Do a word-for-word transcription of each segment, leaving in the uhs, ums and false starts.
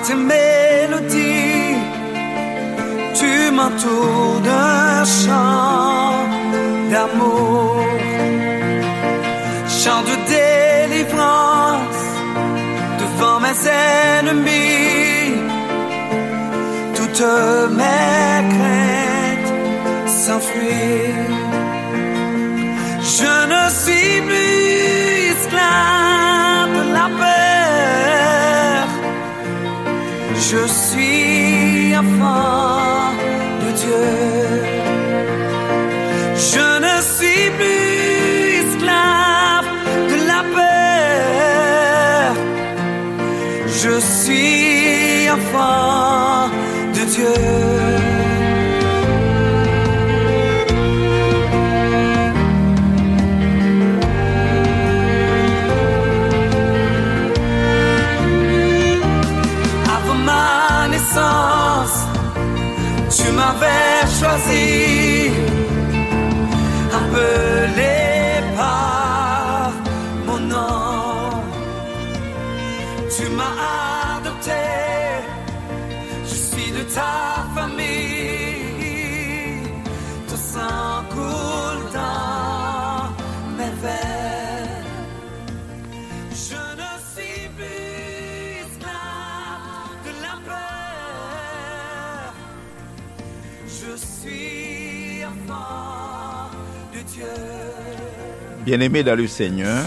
Tes mélodies, tu m'entoures d'un chant d'amour, chant de délivrance devant mes ennemis. Toutes mes craintes s'enfuient. Je ne suis plus esclave de la peur. Je suis enfant de Dieu. Je ne suis plus esclave de la peur. Je suis enfant de Dieu. Avant ma naissance, tu m'avais choisi, appelé par mon nom. Tu m'as adopté, je suis de ta famille. Ton sang coule dans mes veines. Je ne suis plus esclave de la peur. Je suis enfant de Dieu. Bien-aimés dans le Seigneur,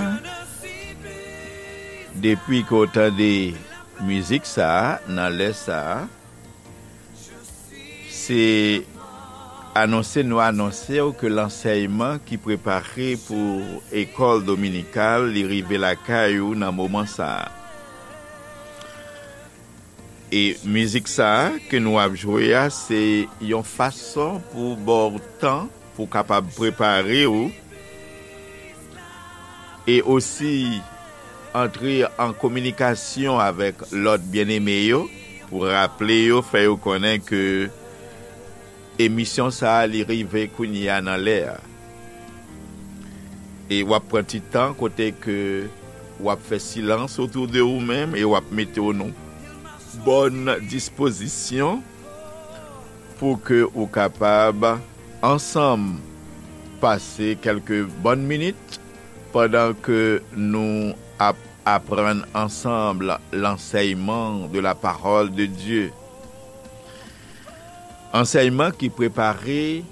depi ke w tande mizik sa a, nan lè sa a, se anonse nou anonse w ke lansèyman ki prepare pou ekòl dominikal, li rive lakay ou nan moman sa a. E mizik sa a ke nou ap jwe a, se yon fason pou ba w tan pou w kapab prepare w e osi antre an kominikasyon avèk lòt byeneme yo, pou raple yo, fè yo konnen ke emisyon sa a, li rive kounye a nan lè a. E w ap pran ti tan kote ke w ap fè silans otou de ou menm e w ap mete w nan bòn dispozisyon pou ke ou kapab ansanm pase kèlke bòn minit pandan ke nou ap aprann ansanm lansèyman de la parole de Dieu. Ansèyman ki prepare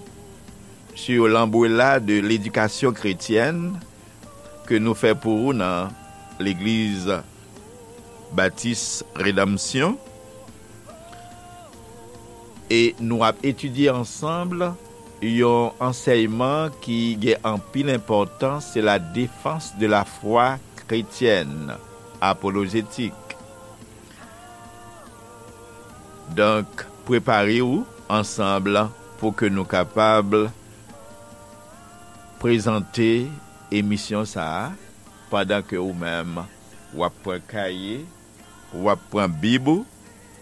sur l'ombrella de l'éducation chrétienne ke nou fè pou ou nan Legliz Batis Redanmsyon. E nou ap etidye ansanm yon ansèyman ki gen anpil enpòtans, se la défense de la foi chrétienne, apolojétik. Donk, prepare w ansanm pou ke nou kapab prezante emisyon sa a, pandan ke ou menm, w ap pran kaye, w ap pran bib ou,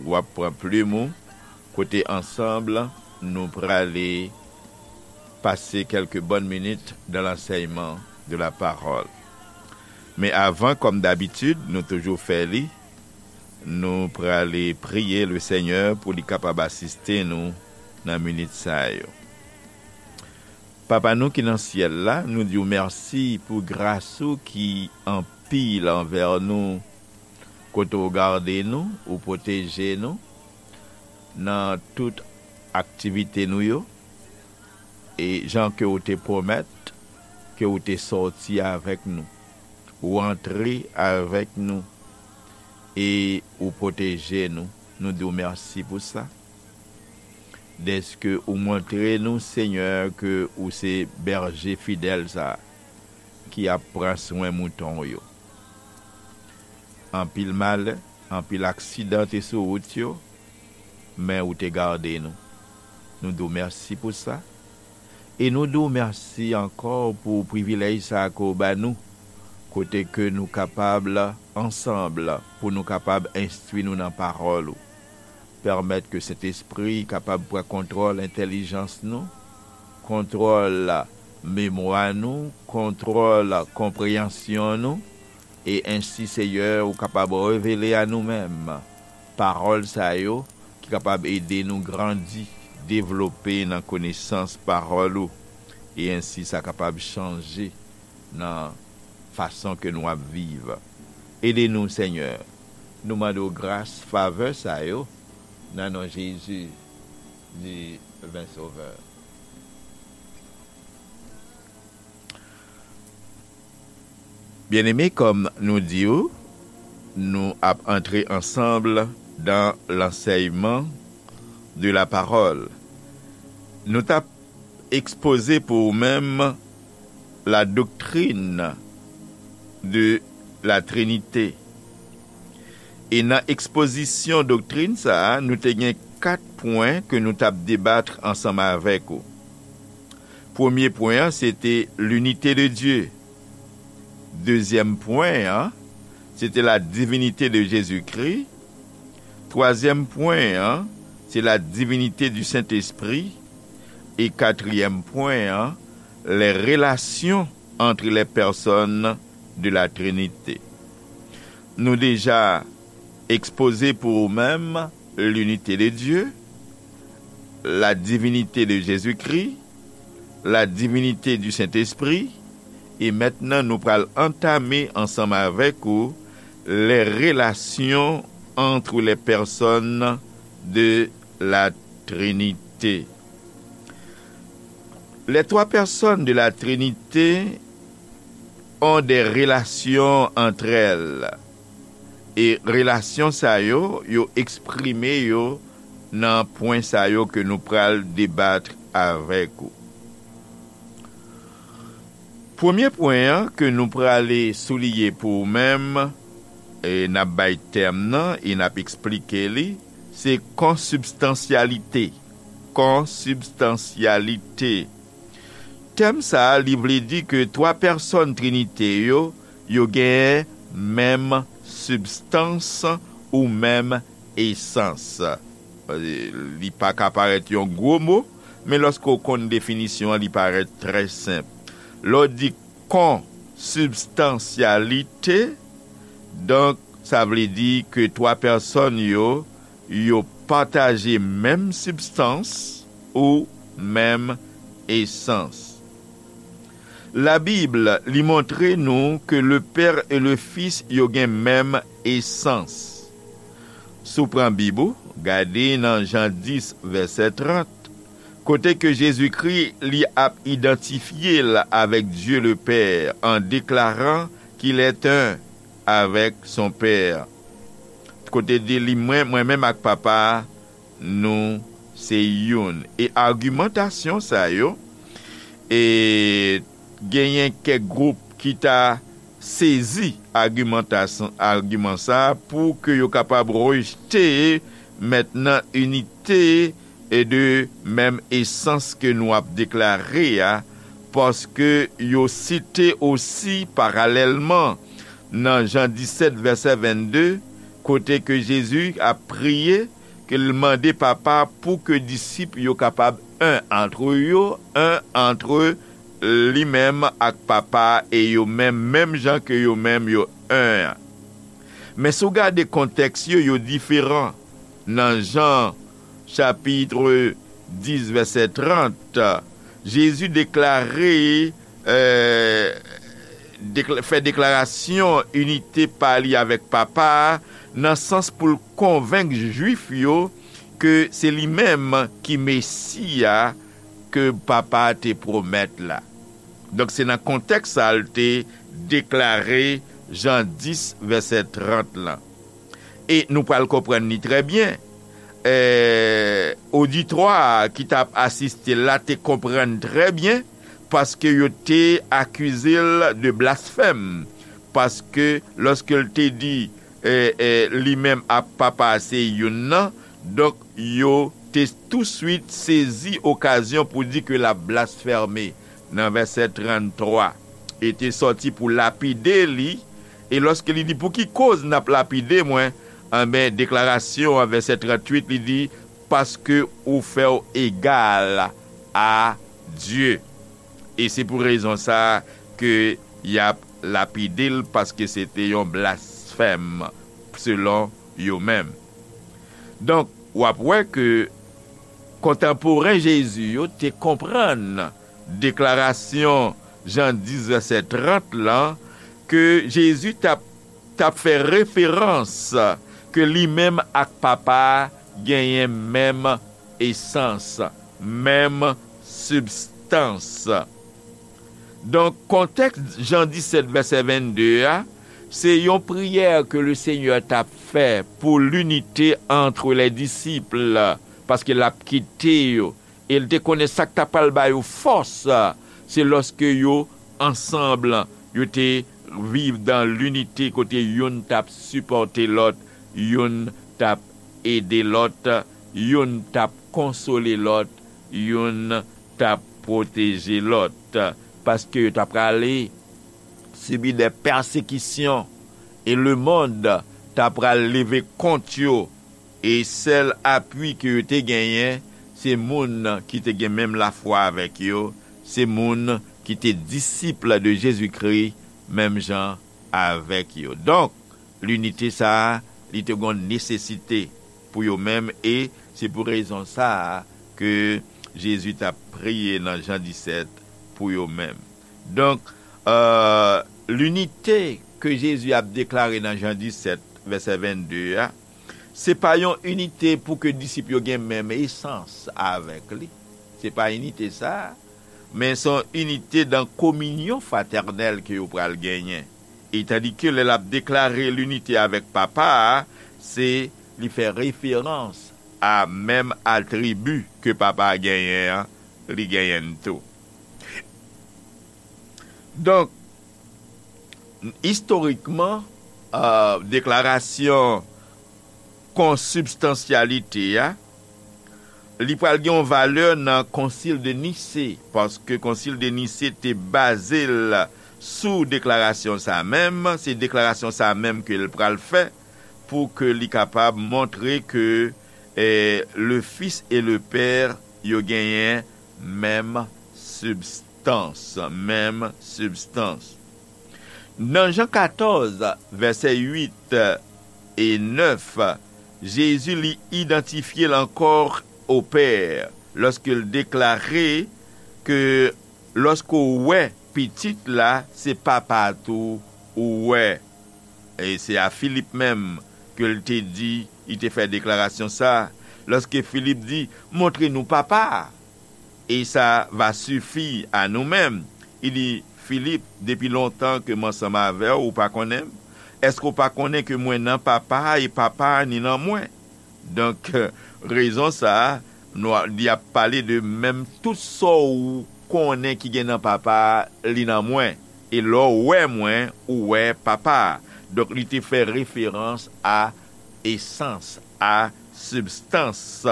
w ap pran plim ou, kote ansanm nou prale pase kèlke bòn minit dans l'enseignement de la parole. Men avan, kòm dabitid, nou toujou fè li, nou prale priye le Senyè pou li kapab asiste nou nan minit sa yo. Papa nou ki nan syèl la, nou di w mèsi pou gras ou ki anpil anvè nou, kote w gade nou, ou pwoteje nou nan tout aktivite nou yo, e jan ke w te pwomèt ke w te sòti avèk nou, ou antre avèk nou, e ou pwoteje nou. Nou di w mèsi pou sa. Dèske ou montre nou, Senyè, ke ou se bèje fidèl sa a, ki ap pran swen mouton w yo. Anpil malè, anpil aksidan te sou wout yo, men ou te gade nou. Nou di w mèsi pou sa. E nou di w mèsi ankò pou privilèj sa a ke w ba nou, kote ke nou kapab ansanm pou nou kapab enstwi nou nan pawòl ou. Pèmèt ke Sentespri kapab pran kontwòl entèlijans nou, kontwòl memwa nou, kontwòl konpreyansyon nou, e ensi, Seyè, ou kapab revele a nou menm pawòl sa yo ki kapab ede nou grandi, devlope nan konesans pawòl ou, e ensi sa kapab chanje nan fason ke nou ap viv. Ede nou, Senyè. Nou mande w gras, favè sa yo, nan non Jezi, divin Sovè. Byeneme, kòm nou di w, nou ap antre ansanm dan lansèyman de la parole. Nou t ap ekspoze pou ou menm la doctrine de la Trinité. E nan ekspozisyon doktrin sa a, nou te gen kat pwen ke nou t ap debat ansanm avèk ou. Premye pwen an, se te l'unité de Dieu. Dezyèm pwen an, se te la divinité de Jésus-Christ. Twazyèm pwen an, se la divinité du Saint-Esprit. E katriyèm pwen an, les relations entre les personnes de la Trinité. Nou deja ekspoze pou ou menm l'unité de Dieu, la divinité de Jésus-Christ, la divinité du Saint-Esprit, e mentnan nou pral antame ansanm avèk ou les relations entre les personnes de la Trinité. Les trois personnes de la Trinité ont des relations entre elles. E relasyon sa yo, yo eksprime yo nan pwen sa yo ke nou pral debat avèk ou. Premye pwen an ke nou prale souliye pou ou menm, e n ap bay tèm nan e n ap eksplike li, se konsibstansyalite. Konsibstansyalite. Tèm sa a, li vle di ke twa pèsòn Trinite yo, yo genyen menm sibstans ou menm esans. Li pa ka parèt yon gwo mo, men lòske w konn definisyon an, li parèt trè senp. Lè w di konsibstansyalite, donk, sa vle di ke twa pèsòn yo, yo pataje menm sibstans ou menm esans. Labib, li montre nou ke le Père et le Fils, yo gen menm esans. Si w pran Bib ou, gade nan Jan dis, vèsè trant, kote ke Jezikri, li ap idantifye l avèk Dye le Pè, an deklaran qu'il est un avec son Père. Kote di li, mwen, mwen menm ak Papa a, nou se youn. E agimantasyon sa yo, e genyen kèk gwoup ki ta sezi agimantasyon, agiman sa a pou ke yo kapab rejte mentnan inite e de menm esans ke nou ap deklare a, paske yo site osi paralèlman nan Jan disèt, vèsè vennde, kote ke Jezi ap priye, ke l mande Papa pou ke disip yo kapab un entre yo, un entre li menm ak Papa e yo menm, menm jan ke yo menm yo un an. Men si w gade kontèks yo, yo diferan. Nan Jan chapit dis, vèsè trant, Jezi deklare, eh, dekla-, fè deklarasyon inite pa li avèk Papa a, nan sans pou l konvenk Jwif yo ke se li menm ki Mesi a ke Papa a te pwomèt la. Donk, se nan kontèks sa a l te deklare Jan dis, vèsè trant lan. E nou pral konprann li trè byen. Eh, oditwa a ki t ap asiste l la te konprann trè byen, paske yo te akize l de blasfèm. Paske lòske l te di, eh, eh, li menm ak Papa a se youn nan, donk yo te touswit sezi okazyon pou di ke l ap blasfème nan vèsè tranntwa, e te sòti pou lapide li, e lòske li di, "Pou ki koz n ap lapide mwen?" Anben, deklarasyon an, vèsè tranntuit, li di, "Paske ou fè w egal a Dye." E se pou rezon sa a ke y ap lapide l, paske se te yon blasfèm, selon yo menm. Donk, w ap wè ke kontanporen Jezi yo te konprann deklarasyon Jan dis vèsè trant lan, ke Jezi t ap, t ap fè referans ke li menm ak Papa a genyen menm esans, menm sibstans. Donk, kontèks Jan disèt vèsè vennde a, se yon priyè ke Lesenyè t ap fè pour l'unité entre les disciples, paske l ap kite yo. E l te konnen sa k ta pral ba yo fòs, se lòske yo ansanm, yo te viv dans l'unité, kote youn t ap sipòte lòt, youn t ap ede lòt, youn t ap konsole lòt, youn t ap pwoteje lòt, paske yo ta prale sibi de pèsekisyon, e lemonn ta pral leve kont yo, e sèl apui ke yo te genyen, se moun ki te gen menm lafwa avèk yo, se moun ki te disip de Jezikri, menm jan avèk yo. Donk, linite sa a, li te gon nesesite pou yo menm, e se pou rezon sa a ke Jezi t ap priye nan Jan disèt pou yo menm. Donk, euh, linite ke Jezi ap deklare nan Jan disèt, vèsè vennde a, se pa yon inite pou ke disip yo gen menm esans avèk li. Se pa inite sa a, men se yon inite dan kominyon fratènèl ke yo pral genyen. E tandike lè l ap deklare linite avèk Papa a, se li fè referans a menm atribi ke Papa a genyen an, li genyen l tou. Donk, istorikman, euh, deklarasyon konsibstansyalite a, li pral gen yon valè nan Konsil de Nise, paske Konsil de Nise te baze l sou deklarasyon sa menm, se deklarasyon sa menm ke l pral fè pou ke li kapab montre ke, eh, le Fils et le Père yo genyen menm sibstans, menm sibstans. Nan Jan katòz, vèsè uit e nèf, Jezi li idantifye l ankò o Pè, lòske l deklare ke lòske w wè Pitit la, se Papa a tou ou wè. E se a Filip menm ke l te di, li te fè deklarasyon sa a. Lòske Filip di, montre nou Papa a, e sa va sifi a nou menm. Li di, Filip, depi lontan ke m ansanm avè w, ou pa konnen m? Èske w pa konnen ke mwen nan Papa a e Papa a ni nan mwen? Donk, rezon sa a, nou a, li ap pale de menm tout sa w konnen ki gen nan Papa a, li nan mwen. E lè w wè mwen, ou wè Papa a. Donk, li te fè referans a esans, a sibstans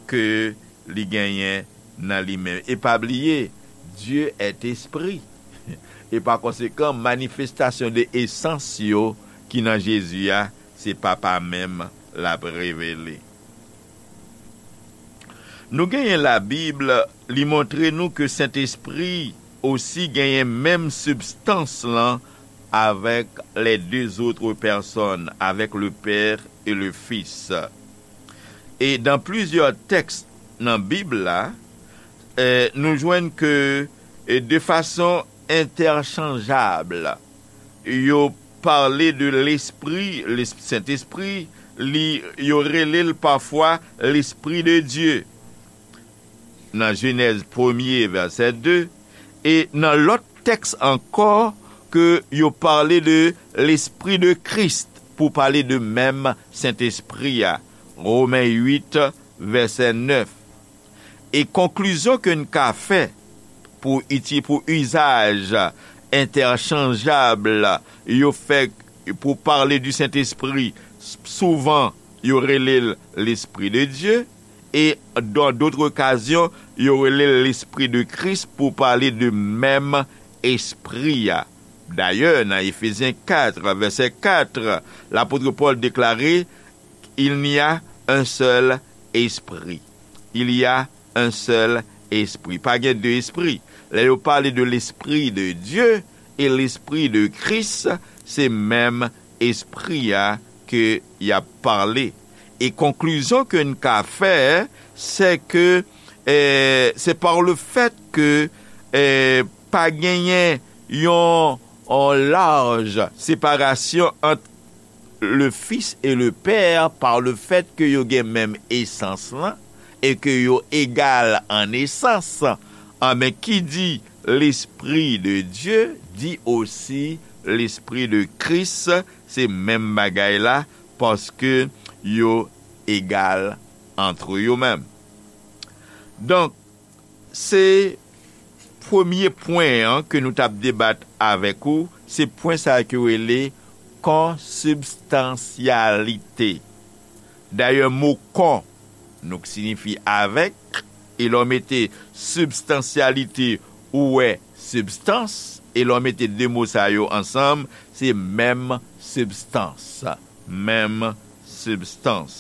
ke li genyen nan li menm. E pa bliye, Dieu est esprit. E pa konsekan, manifestasyon de esans yo ki nan Jezi a, se Papa menm l ap revele. Nou genyen Labib, li montre nou ke Sentespri osi genyen menm sibstans lan avèk les deux autres personnes, avec le Père et le Fils. E dan plizyè tèks nan Bib la, eh, nou jwenn ke, eh, de fason entèchanjab, yo pale de Lespri, Sentespri, li, yo rele l pafwa Lespri de Dye. Nan Jenèz premye, vèsè de, e nan lòt tèks ankò ke yo pale de Lespri de Kris pou pale de menm Sentespri a. Women uit, vèsè nèf. E konklizyon ke n ka fè pou iti-, pou izaj entèchanjab yo fè pou pale di Sentespri, s-, souvan yo rele l Lespri de Dye, e dan dòt okazyon, yo rele l Lespri de Kris pou pale de menm Espri a. Dayè, nan Efezyen kat, vèsè kat, lapot Pòl deklare, Il n'y a un seul esprit. Il y a un seul esprit. Pa gen de espri. Lè yo pale de Lespri de Dye e Lespri de Kris, se menm Espri a ke y ap pale. E konklizyon ke n ka fè, se ke, eh, se par le fait que, eh, pa genyen yon, yon laj separasyon ant le Fils et le Père par le fait que yo gen menm esans lan e ke yo egal an esans. Anben, ki di l'Esprit de Dieu, di osi l'Esprit de Christ, se menm bagay la, paske yo egal antre yo menm. Donk, se premye pwen an ke nou t ap debat avèk ou, se pwen sa a ke yo rele konsibstansyalite. Dayè, mo kon, nou, ki siyifi avèk, e lè w mete sibstansyalite, ou wè sibstans, e lè w mete de mo sa yo ansanm, se menm sibstans. Menm sibstans.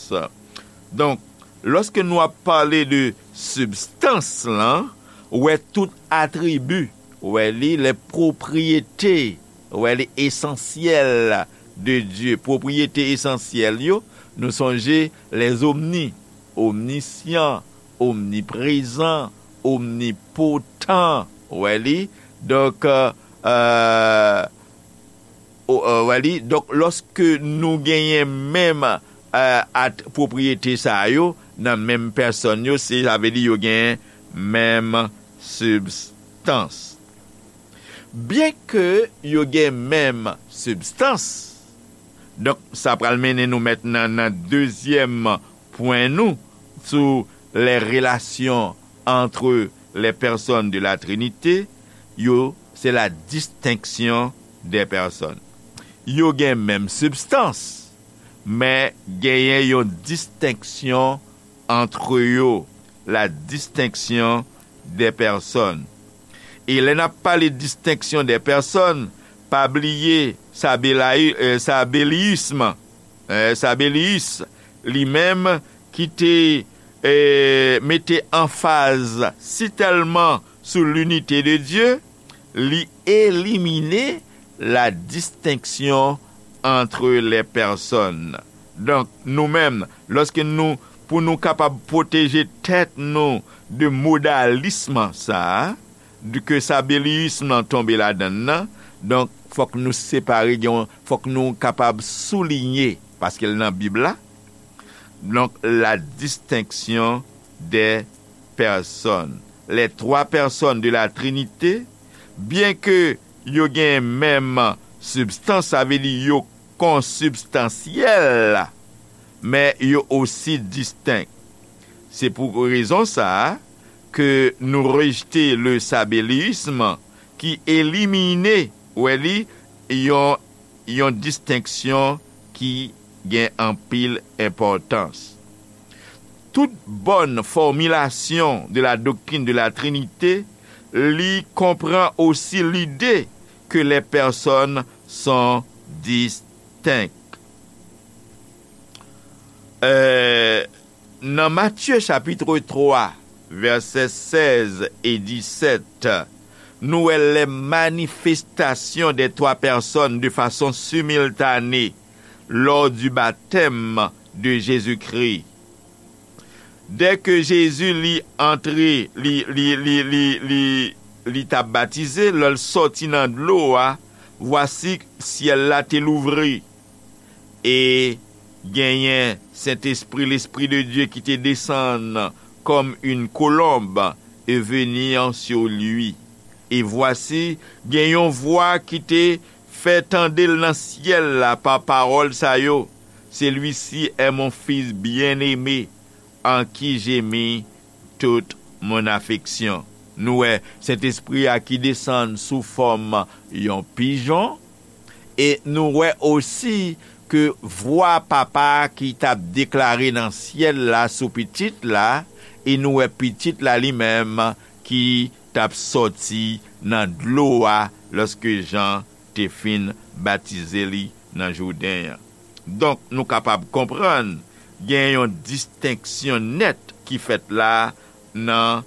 Donk, lòske nou ap pale de sibstans lan, ou wè tout atribi, ou wè li, les propriétés, ou wè li, esansyèl de Dye, pwopriyete esansyèl yo, nou sonje les omni, omnisyan, omniprezan, omnipotan, ou wè li. Donk, euh, euh, o, euh, wè li. Donk, lòske nou genyen menm, euh, at-, pwopriyete sa yo nan menm pèsòn yo, se, sa vle di yo genyen menm sibstans. Byenke yo gen menm sibstans, donk, sa pral mennen nou mentnan nan dezyèm pwen nou sou les relations entre les personnes de la Trinité, yo, se la distinction des personnes. Yo gen menm sibstans, men genyen yon distenksyon antre yo, la distinction des personnes. E lè n ap pale distenksyon des personnes, pa bliye Sabelayi-, euh, Sabeliyis, euh, Sabeliyis, li menm ki te, euh, mete anfaz si tèlman sou l'unité de Dieu, li elimine la distinction entre les personnes. Donk, nou menm, lòske nou, pou nou kapab pwoteje tèt nou de modalism sa a, de ke Sabeliyis lan tonbe ladann nan, donk, fòk nou separe, gen yon, fòk nou kapab souliye, paske l nan Bib la, donk, la distinction des personnes. Les trois personnes de la Trinité, byenke yo gen menm sibstans, sa vle di yo konsibstansyèl, men yo osi distenk. Se pou rezon sa a ke nou rejte le sabeliyis ki elimine, wè li, yon, yon distenksyon ki gen anpil enpòtans. Tout bonne formulation de la doctrine de la Trinité li konpran osi lide ke les personnes sont distinctes. Euh, nan Matye chapit twa, vèsè sèz e disèt, nou wè les manifestations des trois personnes de façon simultanée lors du baptême de Jésus-Christ. Dèke Jezi li antre, li, li, li, li, li, li t ap batize, lè l sòti nan dlo a, vwasi, syèl la te louvri, e genyen Sentespri, l'Esprit de Dieu ki te desann comme une colombe et venir sur lui. E vwasi, gen yon vwa ki te fè tande l nan syèl la pa pawòl sa yo, celui-ci est mon Fils bien-aimé, en qui j'ai mis toute mon affection. Nou wè Sentespri a ki desann sou fòm yon pijon, e nou wè osi ke vwa Papa a ki t ap deklare nan syèl la sou Pitit la, e nou wè Pitit la li menm ki t ap sòti nan dlo a lòske Jan te fin batize li nan Jouden an. Donk, nou kapab konprann gen yon distenksyon nèt ki fèt la nan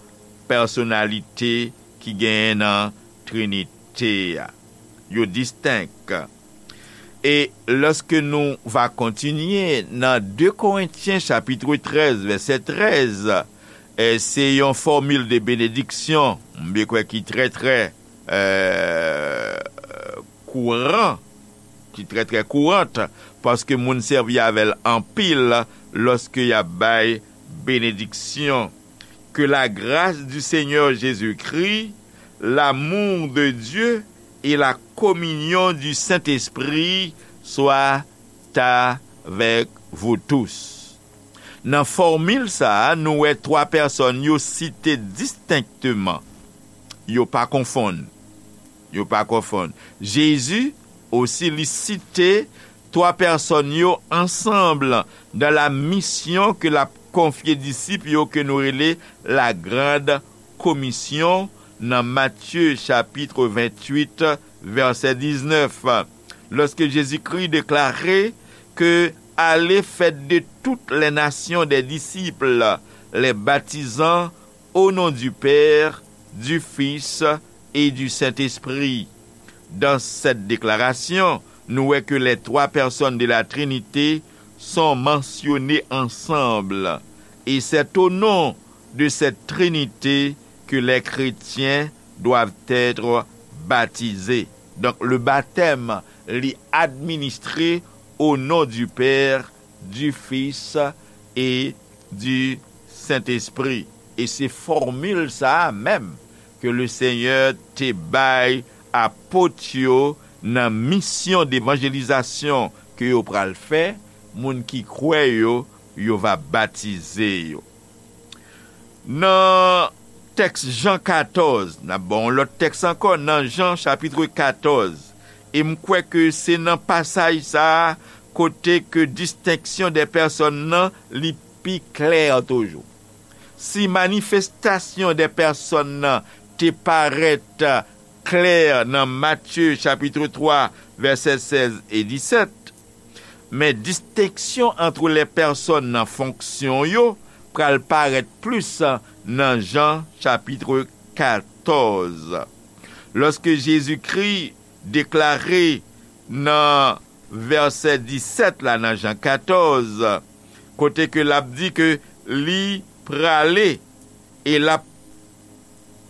pèsonalite ki genyen nan Trinite a. Yo distenk. E lòske nou va kontinye nan de Korentyen chapit trèz, vèsè trèz, e se yon fòmil de benediksyon, m kwè ki trè, trè, e, kouran, ki trè, trè kourant, paske moun sèvi avè l anpil lòske y ap bay benediksyon. Que la grâce du Seigneur Jésus-Christ, l'amour de Dieu et la communion du Saint-Esprit soient avec vous tous. Nan fòmil sa a, nou wè twa pèsòn yo site distenkteman. Yo pa konfonn. Yo pa konfonn. Jezi osi, li site twa pèsòn yo ansanm dans la mission ke l ap konfye disip yo, ke nou rele la grande commission nan Matye chapit venntuit, vèsè diznèf. Lorsque Jésus-Christ déclarait que allez faire de toutes les nations des disciples, les baptisant au nom du Père, du Fils et du Saint-Esprit. Dans cette déclaration, nou wè ke les trois personnes de la Trinité sont mentionnées ensemble. Et c'est au nom de cette Trinité que les chrétiens doivent être baptisés. Donk, le baptême, li administre au nom du Père, du Fils et du Saint-Esprit. E se fòmil sa a menm ke le Senyè te bay apot yo nan misyon devanjelizasyon ke yo pral fè, moun ki kwè yo, yo va batize yo. Nan tèks Jan katòz, n ap ba w yon lòt tèks ankò, nan Jan chapit katòz, e m kwè ke se nan pasaj sa a kote ke distenksyon dè pèsòn nan li pi klè toujou. Si manifestasyon dè pèsòn nan te parèt klè nan Matye chapit twa, vèsè sèz e disèt, men distenksyon ant lè pèsòn nan fonksyon yo pral parèt plis nan Jan chapit katòz. Lòske Jezikri deklare nan vèsè disèt la nan Jan katòz, kote ke l ap di ke li prale e l ap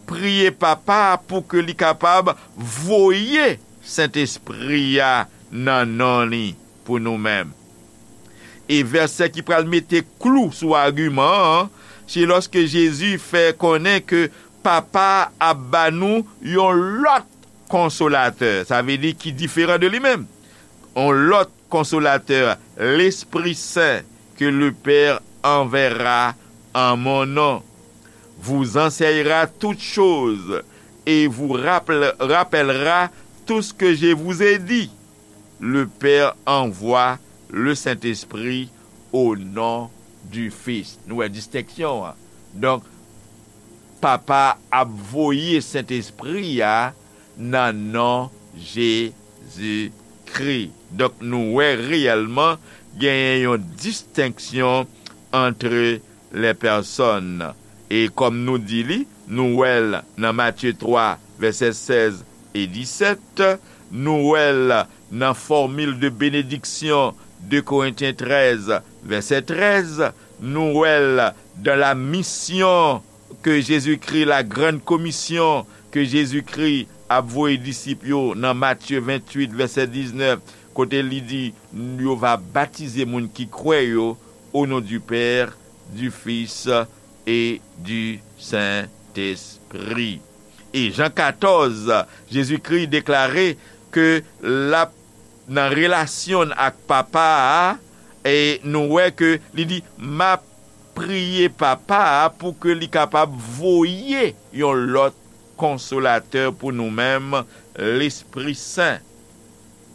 priye Papa a pou ke li kapab voye Sentespri a nan non li pou nou menm. E vèsè ki pral mete klou sou agiman an, se lòske Jezi fè konnen ke Papa a ap ba nou yon lòt konsolatè, sa vle di ki diferan de li menm. Yon lòt konsolatè, Lespri Sen, ke le Père enverra en mon nom, vous enseignera toutes choses et vous rappel-, rappellera tout ce que je vous ai dit. Le Père envoie le Saint-Esprit au nom du Fils. Nou wè distenksyon an. Donk, Papa ap voye Sentespri a nan non Jezikri. Donk, nou wè reyèlman genyen yon distenksyon ant lè pèsòn. E kòm nou di li, nou wè l nan Matye twa, vèsè sèz e disèt, nou wè l nan fòmil de benediksyon, de Korentyen trèz, vèsè trèz, nou wè l dans la mission ke Jezikri, la grande commission ke Jezikri ap voye disip yo nan Matye venntuit, vèsè diznèf, kote li di, yo va batize moun ki kwè yo, au nom du Père, du Fils et du Saint-Esprit. E Jan katòz, Jezikri deklare ke l ap nan relasyon l ak Papa a, e nou wè ke li di, "M ap priye Papa a pou ke li kapab voye yon lòt konsolatè pou nou menm, Lespri Sen,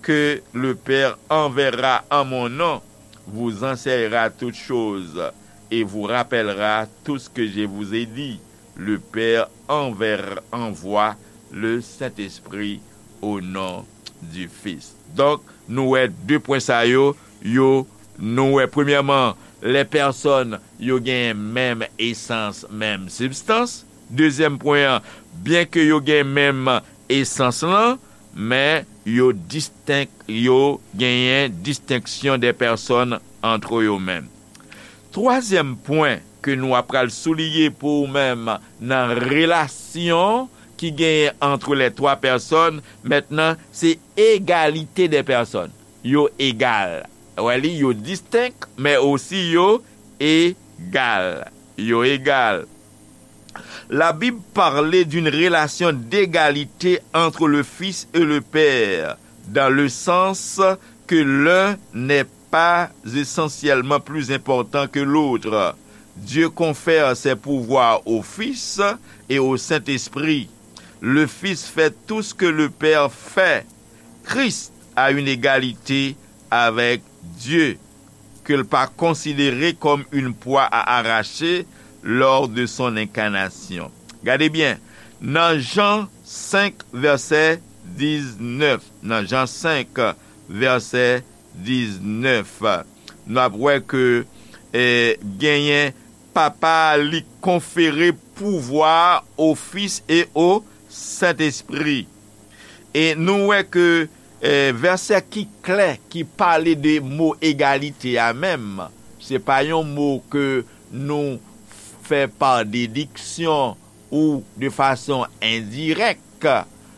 que le Père enverra en mon nom, vous enseignera toutes choses et vous rappellera tout ce que je vous ai dit. Le Père enver-, envoie le Saint-Esprit au nom du Fils." Donk, nou wè de pwen sa yo, yo, nou wè premyèman, lè pèsòn yo gen menm esans, menm sibstans. Dezyèm pwen an, byenke yo gen menm esans lan, men yo distenk, yo genyen distenksyon de pèsòn antre yo menm. Twazyèm pwen ke nou ap pral souliye pou ou menm nan relasyon ki genyen antre les trois personnes, mentnan, se egalite de pèsòn. Yo egal. Wè li, yo distenk, men osi yo egal. Yo egal. La Bible parlait d'une relation d'égalité entre le Fils et le Père, dans le sens que l'un n'est pas essentiellement plus important que l'autre. Dieu confère ses pouvoirs au Fils et au Saint-Esprit. Le Fils fait tout ce que le Père fait. Christ a une égalité avec Dieu que l pa konsidere kòm une proie à arracher lors de son incarnation. Gade byen, nan Jan senk, vèsè diznèf, nan Jan senk, vèsè diznèf, nou ap wè ke, eh, genyen Papa a li konfere pouvwa o Fis e o Sentespri. E nou wè ke, eh, vèsè ki klè, ki pale de mo egalite a menm, se pa yon mo ke nou fè pa dediksyon ou de fason endirèk.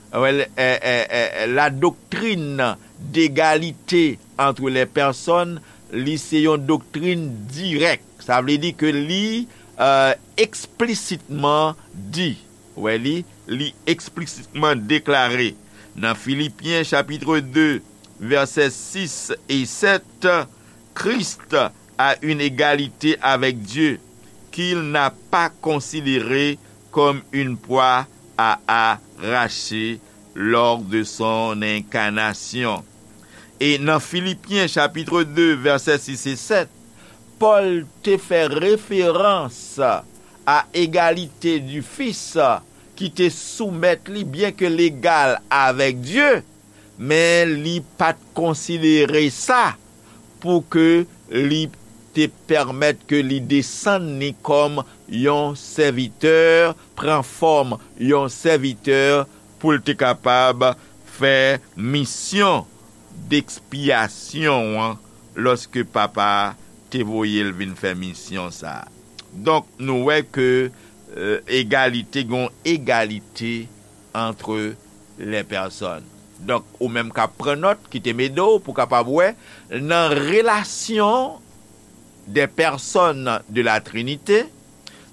Wè, eh, eh, eh, la doctrine d'égalité entre les personnes, li se yon doktrin dirèk. Sa vle di ke li, eh, eksplisitman di, wè li, li eksplisitman deklare nan Filipyen chapit de, vèsè sis e sèt, Christ a une égalité avec Dieu qu'il n'a pas considérée comme une proie à arracher lors de son incarnation. E nan Filipyen chapit de, vèsè sis e sèt, Pòl te fè referans a egalite di Fis ki te soumèt li, byen ke l egal avèk Dye, men li pa t konsidere sa pou ke li te pèmèt ke li desann li kòm yon sèvitè, pran fòm yon sèvitè pou l te kapab fè misyon dekspyasyon an lòske Papa a te voye l vin fè misyon sa a. Donk, nou wè ke, eh, egalite, gon egalite entre les personnes. Donk, ou menm k ap pran nòt, kite m ede w pou w kapab wè, nan relasyon des personnes de la Trinité,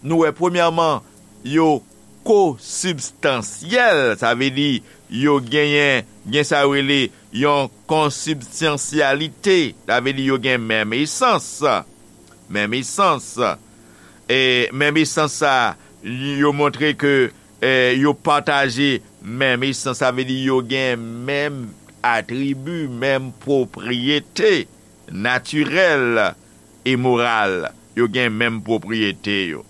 nou wè, premyèman, yo kosibstansyèl, sa vle di yo genyen, gen sa yo rele yon konsibstansyalite, sa vle di yo gen menm esans, menm esans. E menm esans sa, yo montre ke, eh, yo pataje menm esans, sa vle di yo gen menm atribi, menm pwopriyete natirèl e moral, yo gen menm pwopriyete yo.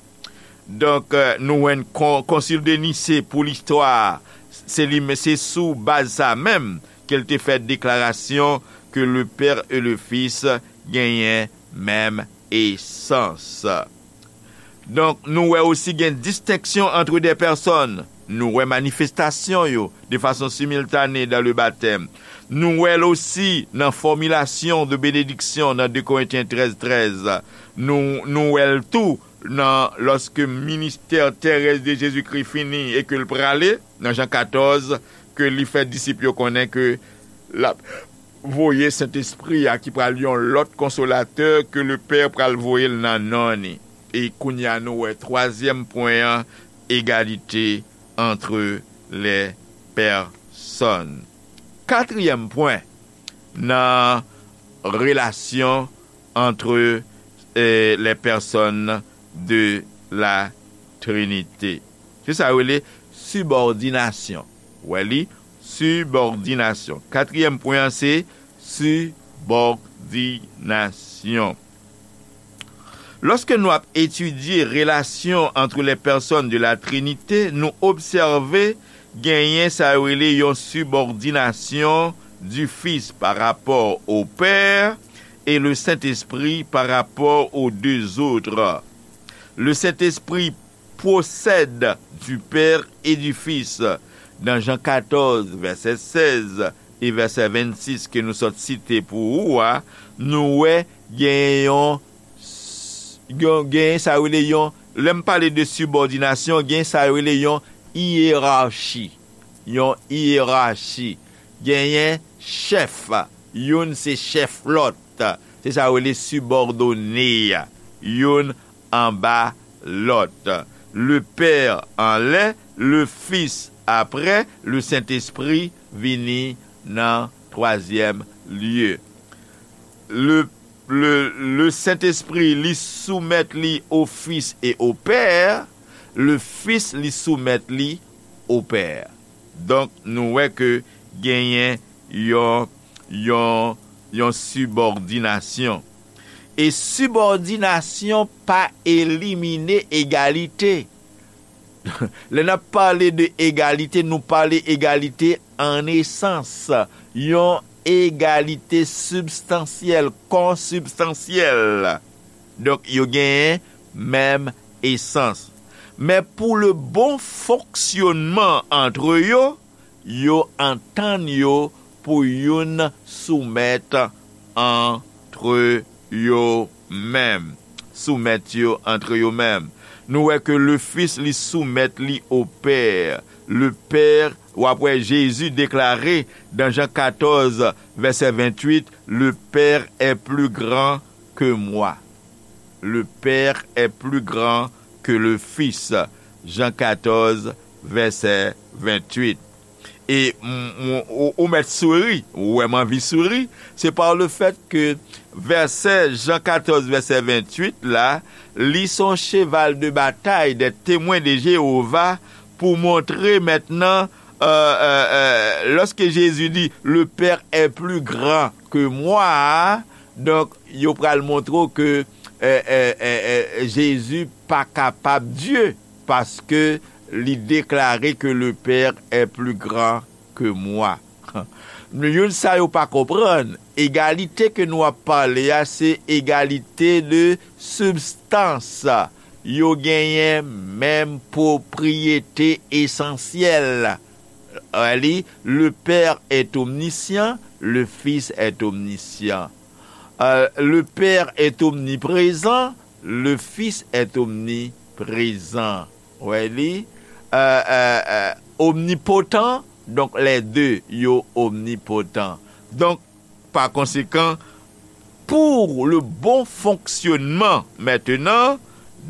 Donk, eh, nou wè kon-, Concile de Nicée pou listwa, se li, se sou baz sa menm ke l te fè deklarasyon ke le Père et le Fils genyen menm esans. Donk, nou wè osi gen distenksyon entre des personnes. Nou wè manifestasyon yo de fason similtane dans le baptême. Nou wè l osi nan formulation de bénédiction nan deux Corinthiens treize treize. Nou, nou wè l tou nan, lòske ministè terès de Jezikri fini e ke l prale, nan Jan katòz, ke li fè disip yo konnen ke l ap voye Sentespri a ki pral yon lòt konsolatè ke Lepè pral voye l nan non ni. E kounye a nou wè twazyèm pwen an, egalite entre les personnes. Katriyèm pwen nan relasyon entre, eh, les personnes de la Trinité. Se sa yo rele sibòdinasyon. Wè li, sibòdinasyon. Katriyèm pwen an se sibòdinasyon. Lòske nou ap etidye relasyon entre les personnes de la Trinité, nou obsève genyen sa yo rele yon sibòdinasyon du Fils par rapport au Père et le Saint-Esprit par rapport aux deux autres. Le Saint-Esprit procède du Père et du Fils. Dans Jean quatorze, verset seize, vèsè vennsis ke nou sot site pou ou a, nou wè genyen yon, yon, genyen sa yo rele yon, lè m pale de sibòdinasyon, genyen sa yo rele yon iyerachi. Yon iyerachi. Genyen chèf, youn se chèf lòt. Se sa yo rele sibòdone a. Youn anba lòt. Le Père anlè, le Fils aprè, le Sentespri vini nan twazyèm lye. Le, le, le Sentespri, li soumèt li o Fis e o Pè, le Fis, li soumèt li o Pè. Donk, nou wè ke genyen yon, yon, yon sibòdinasyon. E sibòdinasyon pa elimine egalite. Lè n ap pale de egalite, nou pale egalite an esans, yon egalite sibstansyèl, konsibstansyèl. Donk, yo genyen menm esans. Men pou le bon fonksyonman antre yo, yo antann yo pou youn soumèt antre yo menm. Soumèt yo antre yo menm. Nou wè ke le Fis, li soumèt li o Pè. Le Père, w ap wè Jezi deklare dan Jan katòz, vèsè venntuit, le Père est plus grand que moi. Le Père est plus grand que le Fils. Jan katòz, vèsè venntuit. E m, m, ou, ou mèt souri, ou wè m anvi souri, se pa le fèt ke vèsè Jan katòz, vèsè venntuit la, li se yon cheval de batay des Témoins de Jéhovah pou montre mentnan, euh, euh, euh, lorsque Jésus dit, le Père est plus grand que moi, donk, yo pral montre w ke, eh, eh, eh, eh, Jezi pa kapab Dye, paske li deklare ke le Père est plus grand que moi. Youn sa yo pa konprann, egalite ke nou ap pale a, se egalite de sibstans. Yo genyen menm pwopriyete esansyèl. Wè li, le Père est omniscient, le Fils est omniscient. Euh, le Père est omniprésent, le Fils est omniprésent. Wè li, euh, euh, euh, omnipotent, donk lè de yo omnipotent. Donk, pa konsekan, pou le bon fonksyonman mentnan,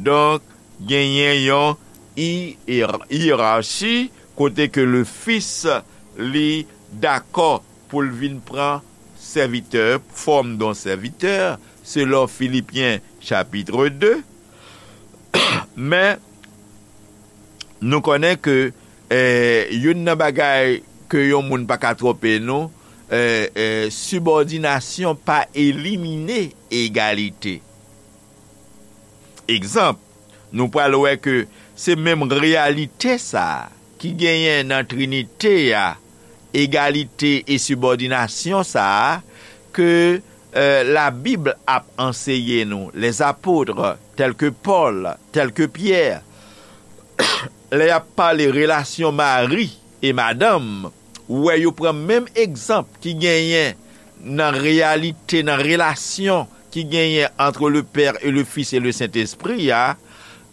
donk, genyen yon iyerachi kote ke le Fis li dakò pou l vin pran sèvitè, fòm de yon sèvitè, selon Filipyen chapit de. Men, nou konnen ke, eh, youn nan bagay ke yon moun pa ka twonpe nou, eh, eh, sibòdinasyon pa elimine egalite. Egzanp, nou pral wè ke se menm reyalite sa a ki genyen nan Trinite a, egalite e sibòdinasyon sa a, ke, eh, Labib ap anseye nou, les apôtres, tels que Paul, tels que Pierre, lè y ap pale relasyon mari e madanm, ou wè yo pran menm egzanp ki genyen nan reyalite, nan relasyon ki genyen entre le Père et le Fils et le Saint-Esprit a,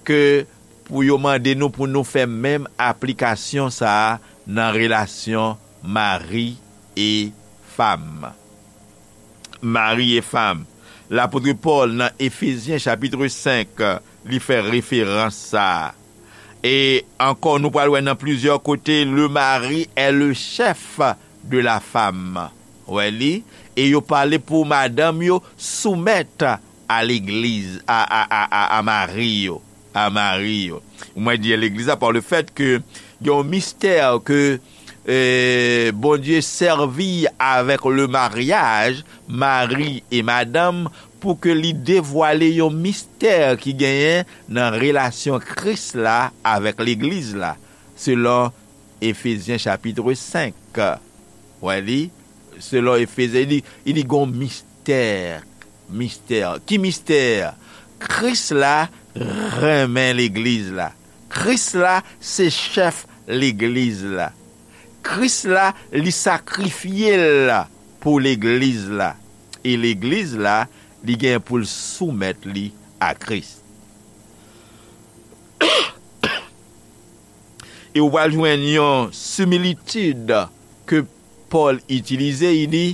ke pou yo mande nou pou nou fè menm aplikasyon sa a nan relasyon mari e fanm. Mari e fanm. Lapot Pòl nan Efezyen chapit senk, li fè referans sa a. E ankò, nou pral wè nan plizyè kote, le mari est le chef de la femme. Wè li? E yo pale pou madanm yo soumèt a legliz, a, a, a, a, a mari yo. A mari yo. Mwen di legliz la pa le fèt ke gen yon mistè ke, eh, Bondye sèvi avèk le maryaj, mari e madanm, pou ke li devwale yon mistè ki genyen nan relasyon Kris la avèk legliz la, selon Efezyen chapit senk. Wè li, selon Efezyen, li, li gon mistè. Mistè. Ki mistè? Kris la renmen legliz la. Kris la se chèf legliz la. Kris la, li sakrifye l pou legliz la. E legliz la, li gen pou l soumèt li a Kris. E w pral jwenn yon similitid ke Pòl itilize, li di,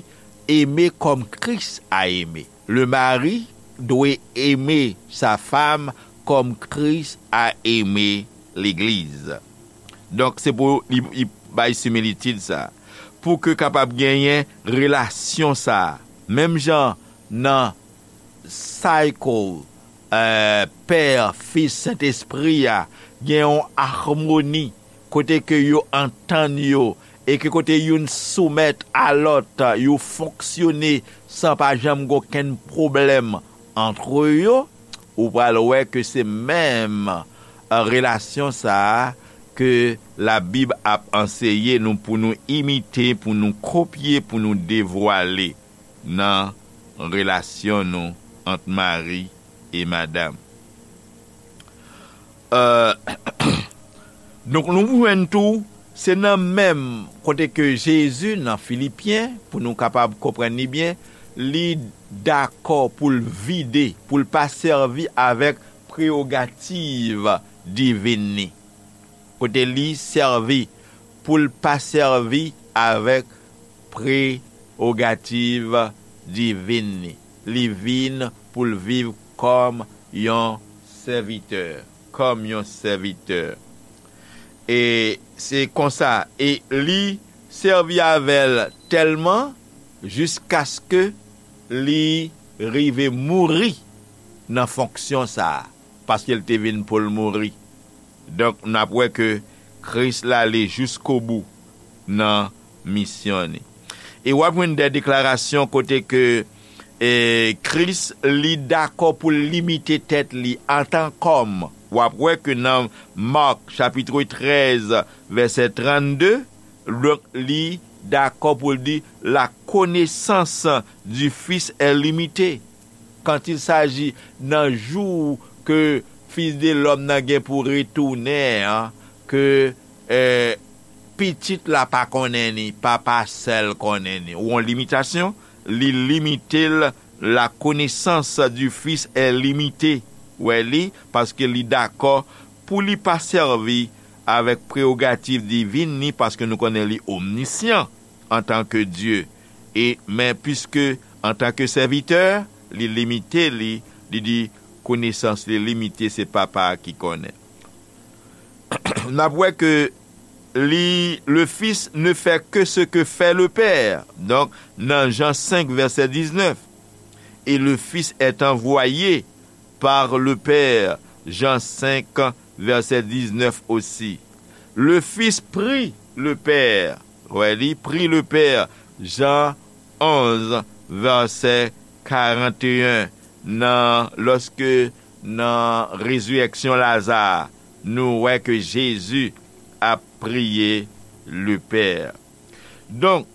eme kòm Kris a eme. Le mari dwe eme sa fam kòm Kris a eme legliz. Donk, se pou li, li bay similitid sa. Pou ke kapab genyen relasyon sa. Menm jan nan cycle, eh, Pè, Fis, Sentespri a, gen yon amoni kote ke yo antann yo e ke kote youn soumèt a lòt, yo fonksyone san pa janm gen okenn pwoblèm antre yo, ou pral wè ke se menm, eh, relasyon sa a ke Labib ap anseye nou pou nou imite, pou nou kopye, pou nou devwale nan relasyon nou ant mari e madanm. Euh, donk, nou jwenn tou, se nan menm kote ke Jezi, nan Filipyen, pou nou kapab konprann li byen, li dakò pou l vide, pou l pa sèvi avèk prewogativ divin li. Kote li sèvi, pou l pa sèvi avèk prewogativ divin li. Li vin pou l viv kòm yon sèvitè, kòm yon sèvitè. E se konsa, e li sèvi avè l tèlman jiskaske li rive mouri nan fonksyon sa a, paske l te vin pou l mouri. Donk, n ap wè ke Kris la ale jiskobou nan misyon li. E w ap jwenn de deklarasyon kote ke, e, Kris, li dakò pou l limite tèt li antan kòm. W ap wè ke nan Mak, chapit trèz, vèsè trannde, donk, li dakò pou l di, la connaissance du Fils est limitée. Quand il s'agit nan jou ke Fis de lòm nan gen pou retounen an, ke, eh, pitit la pa konnen ni, papa sèl konnen ni. Ou yon limitasyon, li limite l, la connaissance du Fils est limitée. Wè li, paske li dakò pou li pa sèvi avèk prewogativ divin ni, paske nou konnen li omnisyan antanke Dye. E, men piske antanke sèvitè, li limite li, li di konesans li limite, se papa a ki konnen. N ap wè ke li, le Fils ne fait que ce que fait le Père. Donk, nan Jan senk, vèsè diznèf, et le Fils est envoyé par le Père, Jan senk, vèsè diznèf osi. Le Fils prie le Père. Wè, li prie le Père, Jan onz, vèsè karanteyen, nan, lòske nan rezirèksyon Laza, nou wè ke Jezi ap priye le Père. Donk,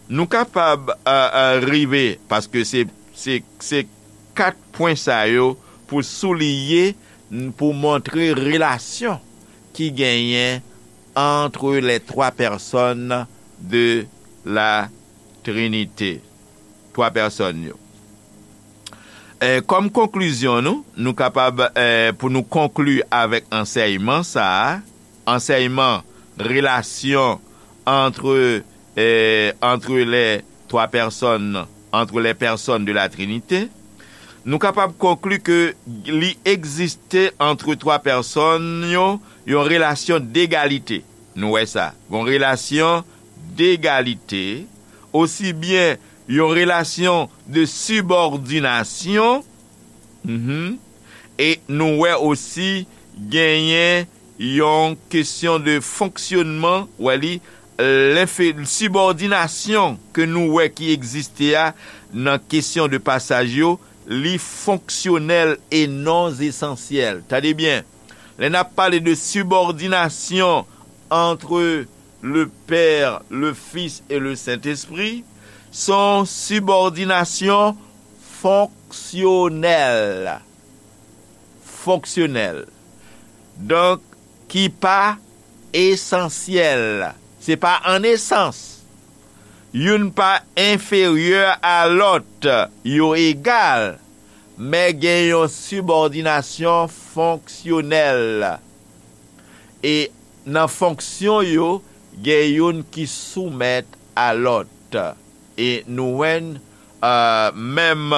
nou kapab, euh, euh, rive, paske se, se, se kat pwen sa yo pou souliye, pou montre relasyon ki genyen entre les trois personnes de la Trinité. Twa pèsòn yo. E, kòm konklizyon nou, nou kapab, e, pou nou konkli avèk ansèyman sa a, ansèyman relasyon entre, e, entre les trois personnes, entre les personnes de la Trinité, nou kapab konkli ke li egziste entre twa pèsòn yo, yon relasyon degalite. Nou wè sa. Yon relasyon degalite, osi byen yon relasyon de sibòdinasyon, mhm, e nou wè osi genyen yon kesyon de fonksyonman, wè li, lenfe-, sibòdinasyon ke nou wè ki egziste a nan kesyon de pasaj yo, li fonksyonèl e non esansyèl. Tande byen, lè n ap pale de sibòdinasyon entre le Père, le Fils et le Saint-Esprit, se yon sibòdinasyon fonksyonèl. Fonksyonèl. Donk, ki pa esansyèl. Se pa an esans. Youn pa enferyè a lòt, yo egal, men gen yon sibòdinasyon fonksyonèl. E nan fonksyon yo, gen youn ki soumèt a lòt. E nou wè n, eh, menm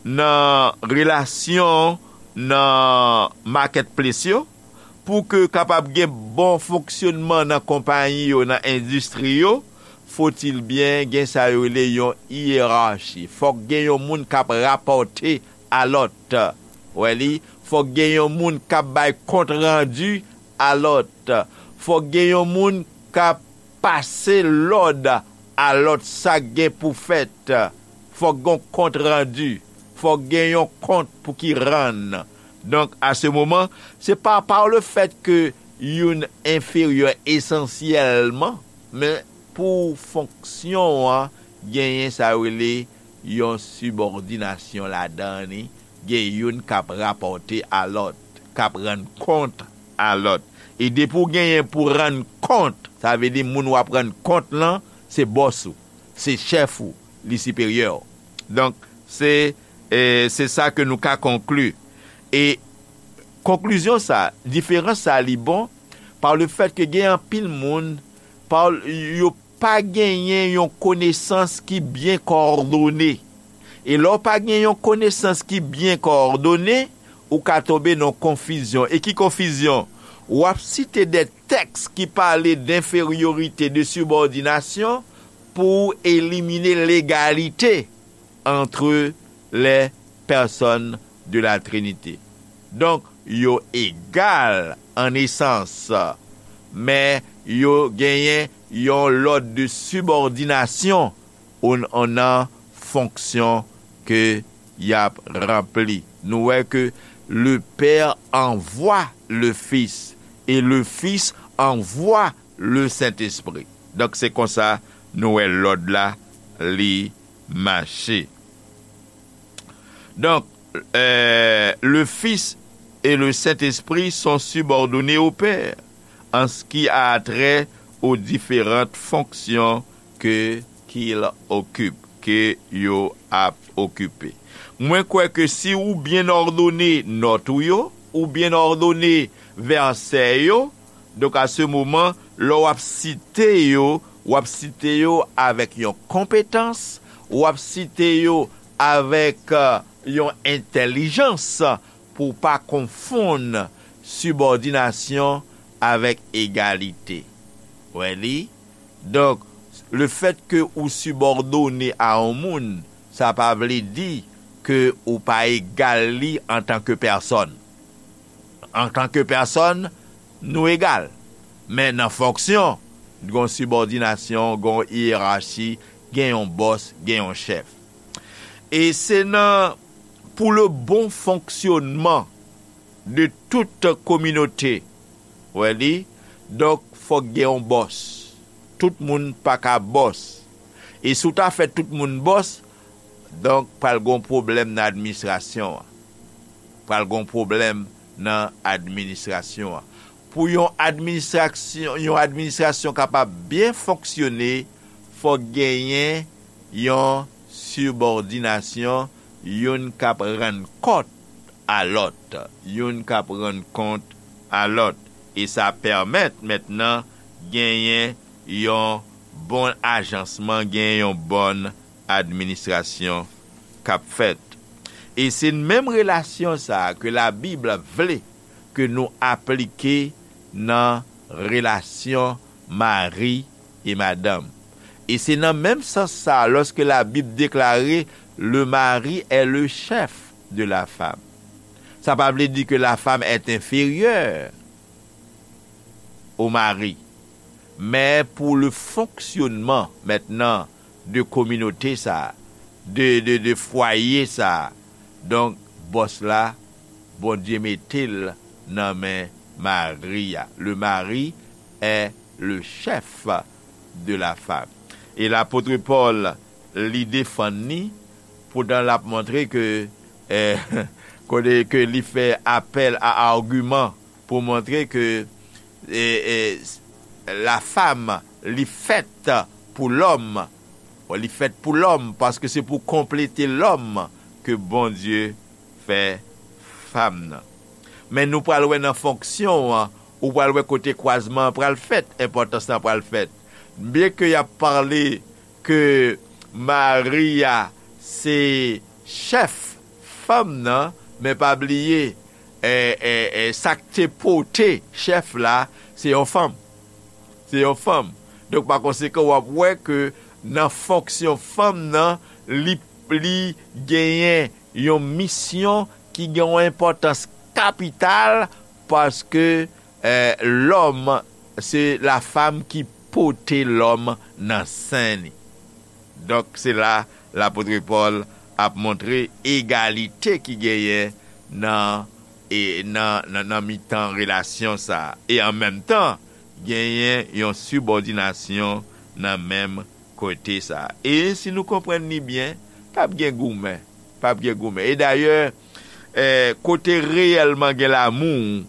nan relasyon nan marketplace yo, pou ke kapab gen bon fonksyonman nan konpayi yo, nan endistri yo, fotil byen gen sa yo rele yon yerachi. Fòk gen yon moun k ap rapòte a lòt. Wè li, fòk gen yon moun k ap bay kont randi a lòt. Fòk gen yon moun k ap pase lòd a lòt sa k gen pou fèt. Fòk gen yon kont randi. Fòk gen yon kont pou ki rann. Donk, a se moman, se pa par le fait que youn enferyè esansyèlman, men pou fonksyon an, genyen sa yo rele yon sibòdinasyon ladan li, gen youn k ap rapòte a lòt, k ap rann kont a lòt. E depi w genyen pou rann kont, sa vle di moun w ap rann kont lan, se bòs ou, se chèf ou, li siperyè w. Donk, se, e, se sa ke nou ka konkli. E konklizyon sa, diferans sa, li bon, par le fait que gen anpil moun, pa, yo pa genyen yon konesans ki byen kowòdone. E lè w pa gen yon konesans ki byen kowòdone, ou ka tonbe nan konfizyon. E ki konfizyon? W ap site de tèks ki pale denferyorite, de sibòdinasyon, pou w elimine legalite entre les personnes de la Trinité. Donk, yo egal an esans, men yo genyen yon lòd de sibòdinasyon ou, ou nan fonksyon ke y ap ranpli. Nou wè ke le Père envoie le Fils et le Fils envoie le Saint-Esprit. Donk, se konsa nou wè lòd la, li mache. Donc, euh, le Fils et le Saint-Esprit sont subordonnés au Père en ce qui a trait aux différentes fonctions que, qu'il occupe, ke yo ap okipe. Mwen kwè ke si ou byen òdone nòt ou yo, ou byen òdone vèsè yo, donk, a se moman, lè w ap site yo, w ap site yo avèk yon konpetans, w ap site yo avèk, euh, yon entèlijans pou w pa konfonn sibòdinasyon avèk egalite. Wè li? Donk, le fait que ou sibòdone a yon moun, sa pa vle di ke ou pa egal li antanke pèsòn. Antanke pèsòn, nou egal. Men nan fonksyon, gen yon sibòdinasyon, gen yon yerachi, gen yon bòs, gen yon chèf. E se nan, pour le bon fonctionnement de toute communauté, wè li, donk, fòk gen yon bòs. Tout moun pa ka bòs. E si w ta fè tout moun bòs, donk, pral gen yon pwoblèm nan administrasyon an. Pral gen yon pwoblèm nan administrasyon an. Pou yon administrasyon, yon administrasyon kapab byen fonksyone, fòk genyen yon sibòdinasyon, youn k ap rann kont a lòt, youn k ap rann kont a lòt. E sa pèmèt mentnan genyen yon bon ajansman, genyen yon bòn administrasyon k ap fèt. E se menm relasyon sa a ke Labib vle ke nou aplike nan relasyon mari e madanm. E se nan menm sans sa a, lòske Labib deklare, le mari est le chef de la femme. Sa pa vle di ke la femme est inférieure au mari. Men pou le fonctionnement mentnan de kominote sa, de, de, de fwaye sa, donk, bòs la, Bondye mete l nan men mari a. Le mari est le chef de la femme. E lapot Pòl, li defann li, poutan l ap montre ke, eh, kote ke li fè apèl a agiman pou montre ke, eh, eh, la femme, li fèt pou lòm. Bon, li fèt pou lòm, paske se pou konplete lòm ke Bondye fè fanm nan. Men nou pral wè nan fonksyon an, ou pral wè kote kwazman an pral fèt, enpòtans lan pral fèt. Byen ke y ap pale ke Mari a se chèf fanm nan, men pa bliye, e, e, e, sa k te pote chèf la, se yon fanm. Se yon fanm. Donk, pa konsekan, w ap wè ke nan fonksyon fanm nan, li, li genyen yon misyon ki gen yon enpòtans kapital, paske, eh, lòm, se la femme ki pote lòm nan sen li. Donk, se la lapot Pòl ap montre egalite ki genyen nan, e, nan, nan, nan mitan relasyon sa a. E an menm tan, genyen yon sibòdinasyon nan menm kote sa a. E si nou konprann li byen, p ap gen goumen. P ap gen goumen. E dayè, eh, kote reyèlman gen lamou,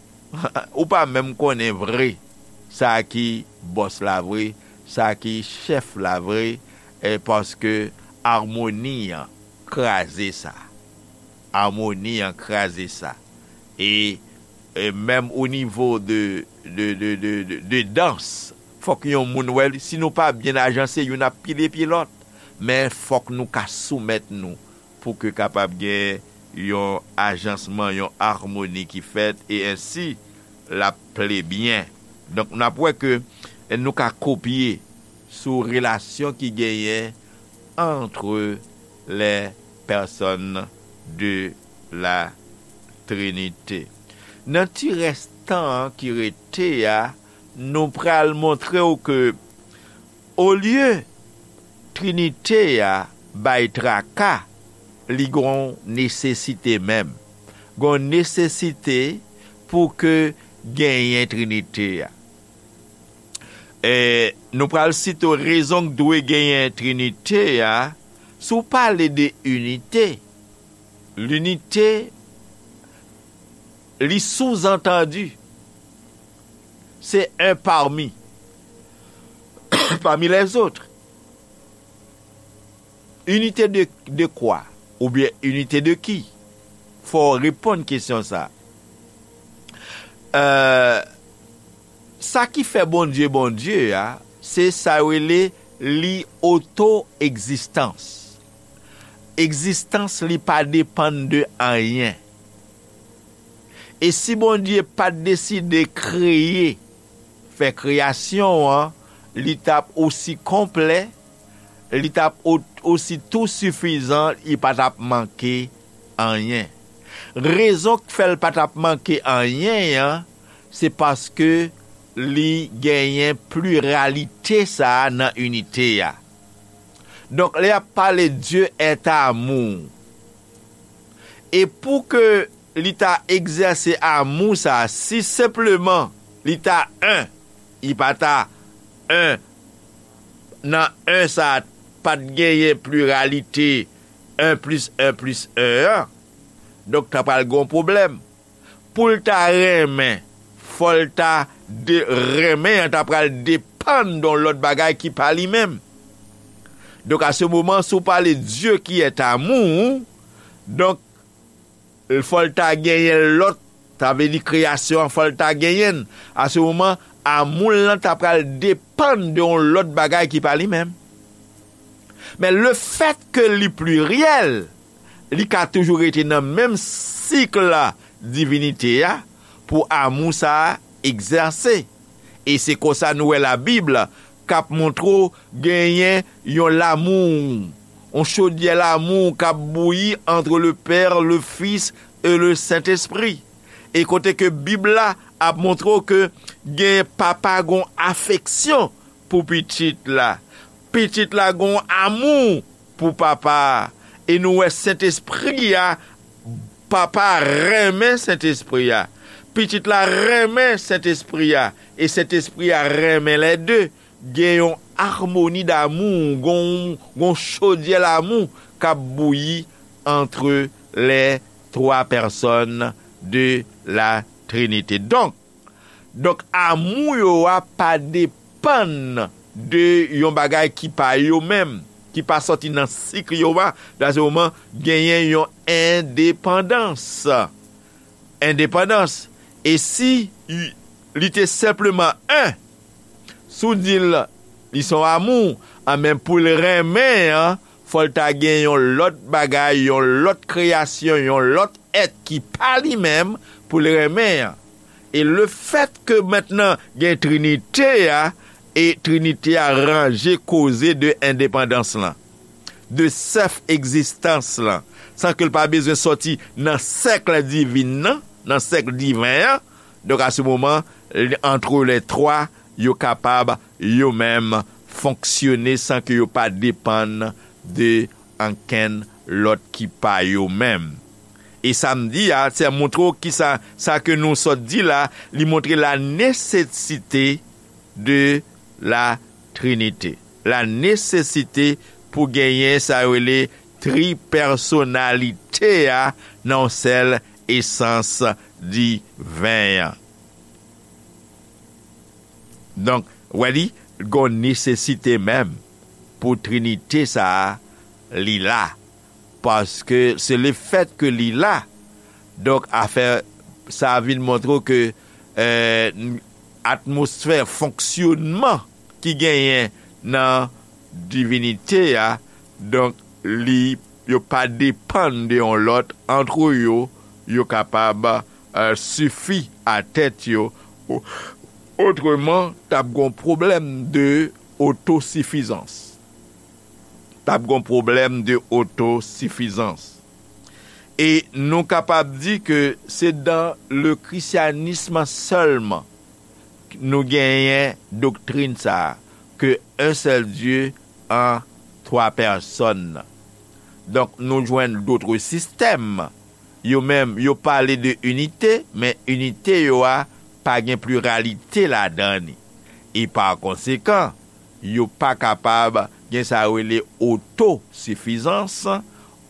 ou pa menm konnen vre sa ki bòs la vre, sa ki chèf la vre, eh, paske amoni an kraze sa. Amoni an kraze sa. E, e menm o nivo de, de, de, de, de, de dans, fòk yon moun wè, si nou pa byen ajanse, youn ap pile pye lòt. Men fòk nou ka soumèt nou pou ke kapab gen yon ajansman, yon amoni ki fèt, e ensi l ap ple byen. Donk, n ap wè ke nou ka kopye sou relasyon ki genyen entre les personnes de la Trinité. Nan ti rès tan an ki rete a, nou pral montre w ke olye Trinite a bay traka, li gon nesesite menm. Gon nesesite pou ke genyen Trinite a. E, nou pral site rezon k dwe genyen Trinite a, si w pale de inite, linite, li souzantandi, se un parmi, parmi les autres. Inite de, de kwa? Oubyen inite de ki? Fò w reponn kesyon sa. Euh, sa ki fè Bondye Bondye a, se sa yo rele li oto-egzistans. Egzistans li pa depann de anyen. E si Bondye pa t deside kreye, fè kreyasyon an, li t ap osi konplè, li t ap o-, osi tou sifizan, li pa t ap manke anyen. Rezon k fè l pa t ap manke anyen an, se paske li genyen pliralite sa a nan inite a. Donk, lè y ap pale Dieu est amour, e pou ke li ta egzèse amou sa a, si senpleman li ta en, li pa ta en, nan en sa a, pa t genyen pliralite en plis en plis en an, donk, ta pral gen yon pwoblèm. Pou l ta renmen, fò l ta de-, renmen an ta pral depann de yon lòt bagay ki pa li menm. Donk, à ce moment, si w pale Dieu qui est amour, donk, fò l ta genyen lòt, sa vle di kreyasyon an, fò l ta genyen l. À ce moment, amou l lan ta pral depann de yon lòt bagay ki pa li menm. Men lefètke li pliryèl, li ka toujou rete nan menm sik la divinite a pou amou sa a egzèse. E se konsa nou wè Labib k ap montre w genyen yon lamou, yon chodyè lamou k ap bouyi entre le Père, le Fils et le Saint-Esprit. E kote ke Bib la ap montre w ke gen papa gon afeksyon pou pitit la. Pitit la gon amou pou papa a. E nou wè Sentespri a, papa a renmen Sentespri a. Pitit la renmen Sentespri a. E Sentespri a renmen lè de. Gen yon amoni damou, gon, gon chodyè lamou k ap bouyi entre les trois personnes de la Trinité. Donk, Donk, amou yo a pa de-, depann de yon bagay ki pa yo menm, ki pa sòti nan sik yo a, dan se moman genyen yon endepandans. Endepandans. E si li te senpleman en, si w di l li se yon amou, anben pou l renmen an, fò l ta gen yon lòt bagay, yon lòt kreyasyon, yon lòt èt ki pa li menm pou l renmen an. E lefèt ke mentnan gen Trinite a, e Trinite a ranje koze de endepandans lan, de sèf egzistans lan, san ke l pa bezwen sòti nan sèk divin nan, nan sèk diven an. Donk, a se moman, antre lè twa, yo kapab yo menm fonksyone san ke yo pa depann de ankenn lòt ki pa yo menm. E sa m di a, se montre w kisa, sa ke nou sot di la, li montre la nesesite de la Trinite. La nesesite pou genyen sa yo rele tripèsonalite a nan yon sèl esans diven an. Donk, wè li, gon nesesite menm pou Trinite sa a, li la. Paske se lefèt ke li la, donk, afè sa a vin montre w ke, eh, atmosfè fonksyonman ki genyen nan divinite a, donk, li, yo pa depann de yon lòt, antre yo, yo kapab, eh, sifi a tèt yo. O-, otreman, t ap gon pwoblèm de otosifizans. T ap gon pwoblèm de otosifizans. E nou kapab di ke se dan le christianisme sèlman nou genyen doktrin sa a, ke un seul Dieu en trois personnes. Donk, nou jwenn dotre sistèm, yo menm, yo pale de inite, men inite yo a pa gen pliralite ladan li. E pa konsekan, yo pa kapab gen sa yo rele otosifizans,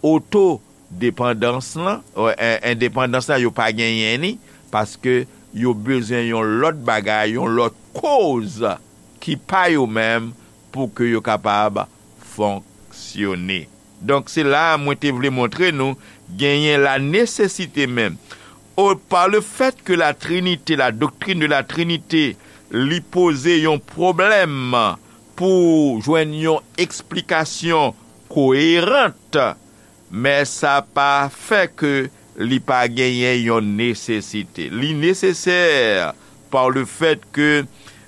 otodepandans lan, euh, en-, endepandans lan, yo pa genyen li, paske yo bezwen yon lòt bagay, yon lòt koz ki pa yo menm pou ke yo kapab fonksyone. Donk, se la a mwen te vle montre nou genyen la nesesite menm. O, pa le fèt ke la Trinite, la doctrine de la Trinité, li poze yon pwoblèm pou jwenn yon eksplikasyon koeran, men sa pa fè ke li pa genyen yon nesesite. Li nesesè pa le fèt ke,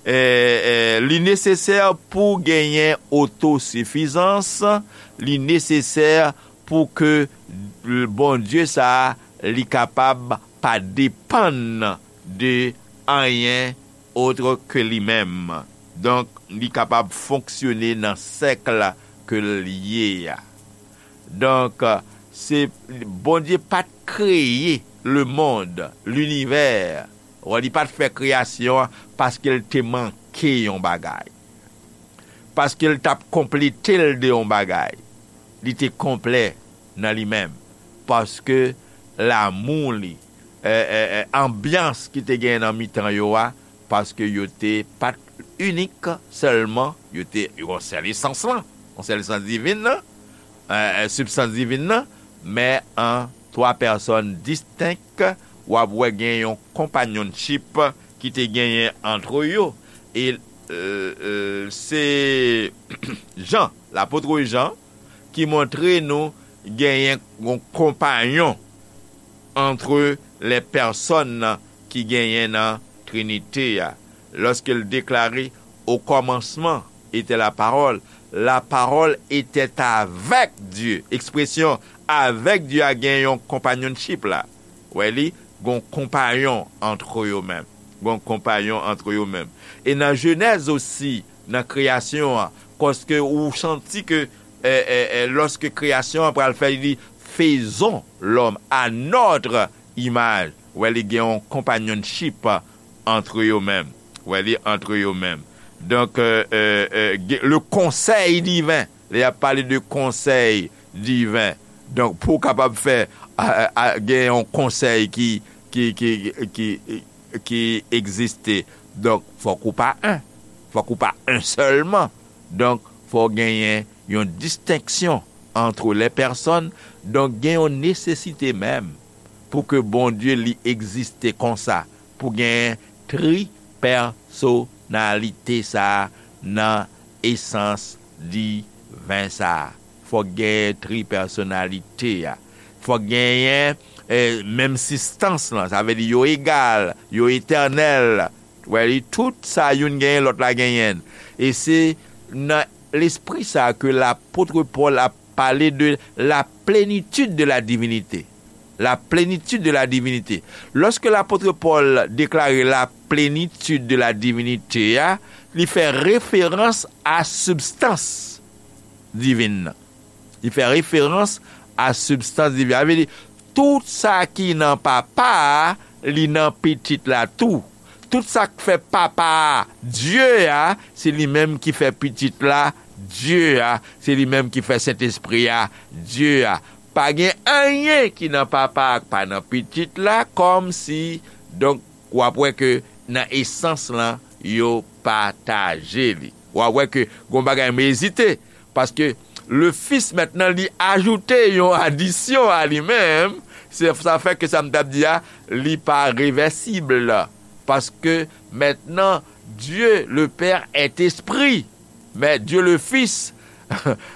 eh, eh, li nesesè pou genyen otosifizans, li nesesè pou ke Bondye sa a, li kapab pa depann de anyen otre ke li menm. Donk, li kapab fonksyone nan sèk ke l ye a. Donk, se, Bondye pa t kreye lemonn, linivè. Wè, li pa t fè kreyasyon an paske l te manke yon bagay. Paske l t ap konplete l de yon bagay. Li te konplè nan li menm. Paske lamou li, eh, eh, eh, anbyans ki te genyen nan mitan yo a, paske yo te pa t inik sèlman, yo te yon sèl esans lan, yon sèl esans divin nan, eh, eh, sibstans divin nan, men an twa pèsòn distenk, w ap wè gen yon konpanyonchip ki te genyen antre yo. E, eh, eh, se Jan, lapot Jan, ki montre nou genyen yon konpanyon antre lè pèsòn ki genyen nan Trinite a. Lòske l deklare, au commencement était la parole, la parole était avec Dieu. Ekspresyon avec Dieu a gen yon konpanyonchip la. Wè li, gon konpanyon antre yo menm. Gon konpanyon antre yo menm. E nan Jenèz osi, nan kreyasyon an, paske ou santi ke, eh, eh, eh, lòske kreyasyon an pral fè, li di, faisons l'homme à notre image. Wè, li gen yon konpanyonchip antre yo menm. Wè, li antre yo menm. Donk, eh, eh, eh, gen, le konsèy diven, lè y ap pale de konsèy diven, donk, pou w kapab fè, a, a, a, gen yon konsèy ki, ki, ki, ki, ki egziste. Donk, fòk ou pa en. Fòk ou pa un sèlman. Donk, fò genyen yon distenksyon entre les personnes. Donk, gen yon nesesite menm pou ke Bondye li egziste konsa, pou genyen tripèsonalite sa a nan esans diven sa a. Fòk genyen tripèsonalite a. Fòk genyen, eh, menm sistans lan. Sa vle di yo egal, yo etènèl. Wè, li, tout sa youn genyen, lòt la genyen. E se nan lespri sa a ke lapot Pòl ap pale de la plénitude de la divinité. La plénitude de la divinité. Lòske lapot Pòl deklare la plénitude de la divinité a, li fè referans a sibstans divin nan. Li fè referans a sibstans divin. Sa vle di, tout sa ki nan Papa a, li nan Pitit la tou. Tout sa k fè Papa a Dye a, se li menm ki fè Pitit la Dye a, se li menm ki fè Sentespri a Dye a. Pa gen anyen ki nan Papa a k pa nan Pitit la, kòmsi, donk, w ap wè ke nan esans lan, yo pataje li. W ap wè ke gon bagay m ezite, paske le Fils, mentnan, li ajoute yon adisyon a li menm, se, sa fè ke sa m t ap di a, li pa revèsib. Paske mentnan, Dieu le Père est esprit, men Dieu le Fils,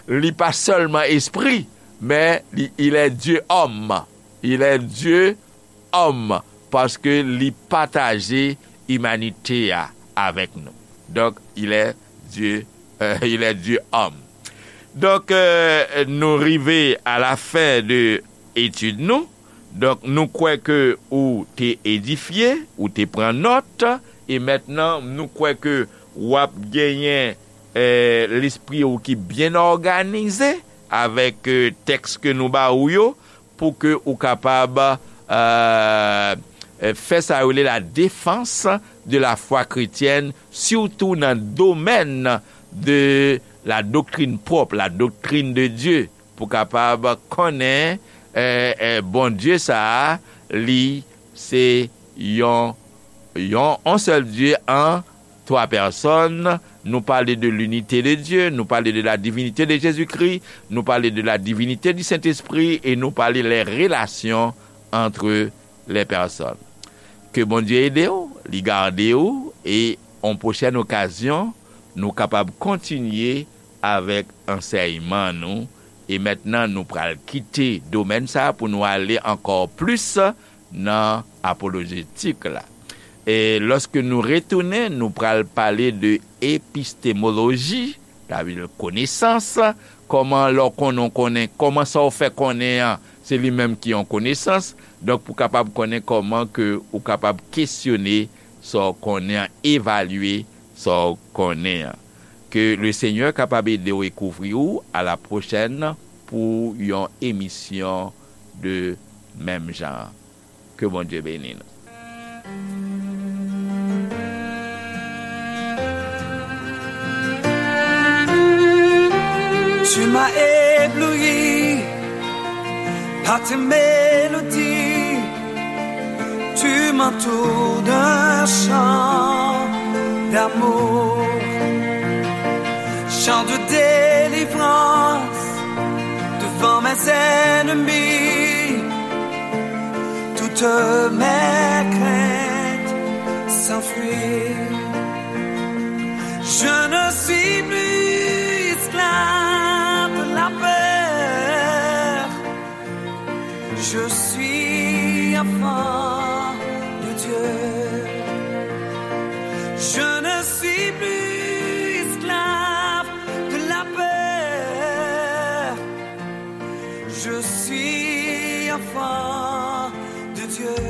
li pa sèlman espri, men li, il est Dieu homme. Il est Dieu homme, paske li pataje imanite a avèk nou. Donk, il est Dieu, euh, il est Dieu homme. Donk, euh, nou rive a la fen de etid nou. Donk, nou kwè ke ou te edifye, ou te pran nòt, e mentnan, nou kwè ke w ap genyen, eh, lespri ou ki byen òganize avèk, eh, tèks ke nou ba ou yo, pou ke ou kapab, euh, euh, fè sa yo rele la défense de la foi chrétienne, sitou nan domèn de la doctrine propre, la doctrine de Dieu, pou kapab konnen, euh, euh, Bondye sa a, li se yon, yon, yon sèl Dye an twa pèsòn. Nou pale de l'unité de Dieu, nou pale de la divinité de Jésus-Christ, nou pale de la divinité du Saint-Esprit, e nou pale les relations entre les personnes. Ke Bondye ede w, li gade w, e yon pwochèn okazyon, nou kapab kontinye avèk ansèyman nou. E mentnan, nou pral kite domèn sa a pou nou ale ankò plis nan apolojetik la. E lòske nou retounen, nou pral pale de epistemoloji, sa vle di konesans, kòman lè w konnen, w konnen, kòman sa w fè konnen an, se li menm ki yon konesans. Donk, pou kapab konnen kòman ke ou kapab kesyone sa w konnen an, evalye sa w konnen an. Ke le Senyè kapab ede w e kouvri w. A la pwochèn pou yon emisyon de menm jan. Ke Bondye beni nou. Tu m'as ébloui par tes mélodies. Tu m'entoures d'un chant d'amour, chant de délivrance devant mes ennemis. Toutes mes craintes s'enfuient. Je ne suis plus esclave de la peur. Je suis enfant de Dieu. Je ne suis plus esclave de la peur. Je suis enfant de Dieu.